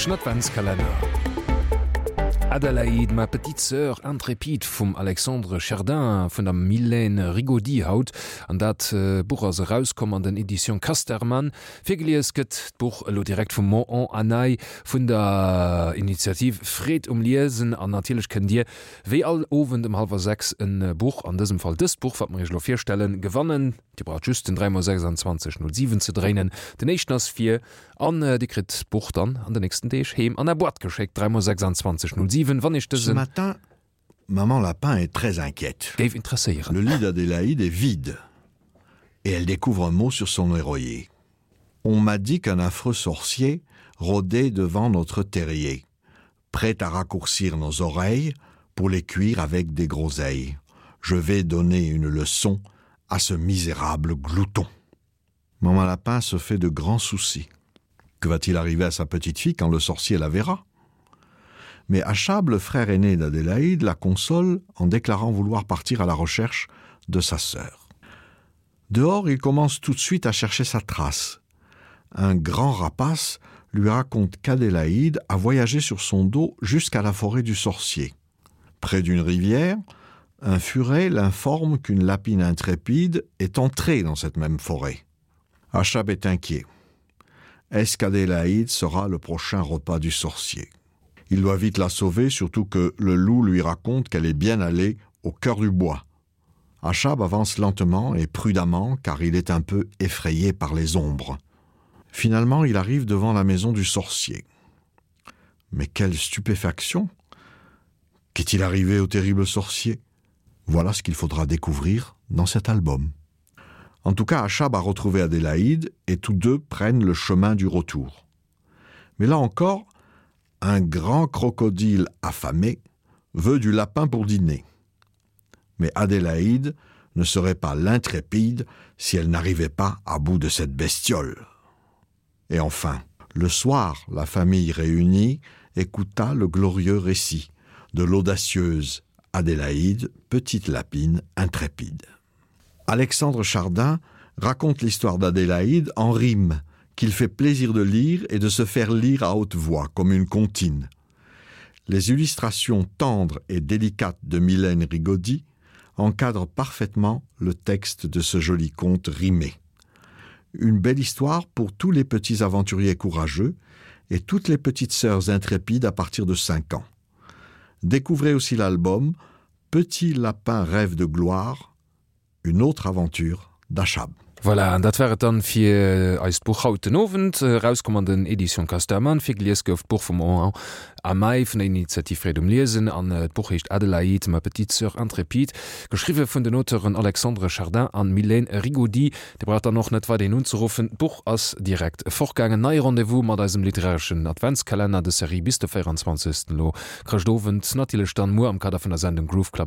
Literareschen Adventskalenner. Adelaïde, ma petite sœur intrépide vum Alexandre Chardin vun der Mylène Rigaudy haut. An dat Buch ass erauskomm an den Editions Casterman. Virgelies gëtt d'Buch elo direkt vum Mohan Anay vun der Initiativ Freed um Liesen. An natierlech kënnt Dir wéi all Owend um hallwer 6 e Buch, an dësem Fall dëst Buch, wat mer Iech elo virstellen, gewannen. Dir braucht just den 3 mol 26 07 ze dréinen. Den éischten ass fir an Dir kritt d'Buch dann an den nächsten Deeg heem an Är Boîte geschéckt. 3 mol 26 07 wann Iech Ce dëse. matin, maman Lapin est très inquiète. Géif interesséieren. Le lit d'Adélaïde est vide et elle découvre un mot sur son oreiller. On m'a dit qu'un affreux sorcier rôdait devant notre terrier, prêt à raccourcir nos oreilles pour les cuire avec des groseilles. Je vais donner une leçon à ce misérable glouton. Maman Lapin se fait de grands soucis. Que va-t-il arriver à sa petite fille quand le sorcier la verra? Mais Achab, le frère aîné d'Adélaïde, la console en déclarant vouloir partir à la recherche de sa sœur. Dehors, il commence tout de suite à chercher sa trace. Un grand rapace lui raconte qu'Adélaïde a voyagé sur son dos jusqu'à la forêt du sorcier. Près d'une rivière, un furet l'informe qu'une lapine intrépide est entrée dans cette même forêt. Achab est inquiet. Est-ce qu'Adélaïde sera le prochain repas du sorcier? Il doit vite la sauver, surtout que le loup lui raconte qu'elle est bien allée au cœur du bois. Achab avance lentement et prudemment car il est un peu effrayé par les ombres. Finalement, il arrive devant la maison du sorcier. Mais quelle stupéfaction! Qu'est-il arrivé au terrible sorcier? Voilà ce qu'il faudra découvrir dans cet album. En tout cas, Achab a retrouvé Adélaïde et tous deux prennent le chemin du retour. Mais là encore, un grand crocodile affamé veut du lapin pour dîner. Mais Adélaïde ne serait pas l'intrépide si elle n'arrivait pas à bout de cette bestiole. Et enfin, le soir, la famille réunie écouta le glorieux récit de l'audacieuse Adélaïde, petite lapine intrépide. Alexandre Chardin raconte l'histoire d'Adélaïde en rime, qu'il fait plaisir de lire et de se faire lire à haute voix comme une comptine. Les illustrations tendres et délicates de Mylène Rigaudy encadrent parfaitement le texte de ce joli conte rimé. Une belle histoire pour tous les petits aventuriers courageux et toutes les petites sœurs intrépides à partir de 5 ans. Découvrez aussi l'album Petit lapin rêve de gloire, une autre aventure d'Achab. Voilà, an dat war et dann fir eist Buch haut den Owend. Erauskomm an den Editions Casterman. Virgelies gouf d'Buch vum Henri Amey vun der Initiativ Freed um Liesen an d'Buch heescht Adelaïde, ma petite sœur intrépide, geschriwwe vun den Auteuren Alexandre Chardin an Mylène Rigaudy. Dir braucht dann och net weiderhin unzeruffen, d'Buch ass direkt fortgaangen. Neie Rendez-vous mat eisem literareschen Adventskalenner de Serie bis de 24. Elo Chrëschtowend, natierlech dann muer am Kader vun der Sendung Groove Club.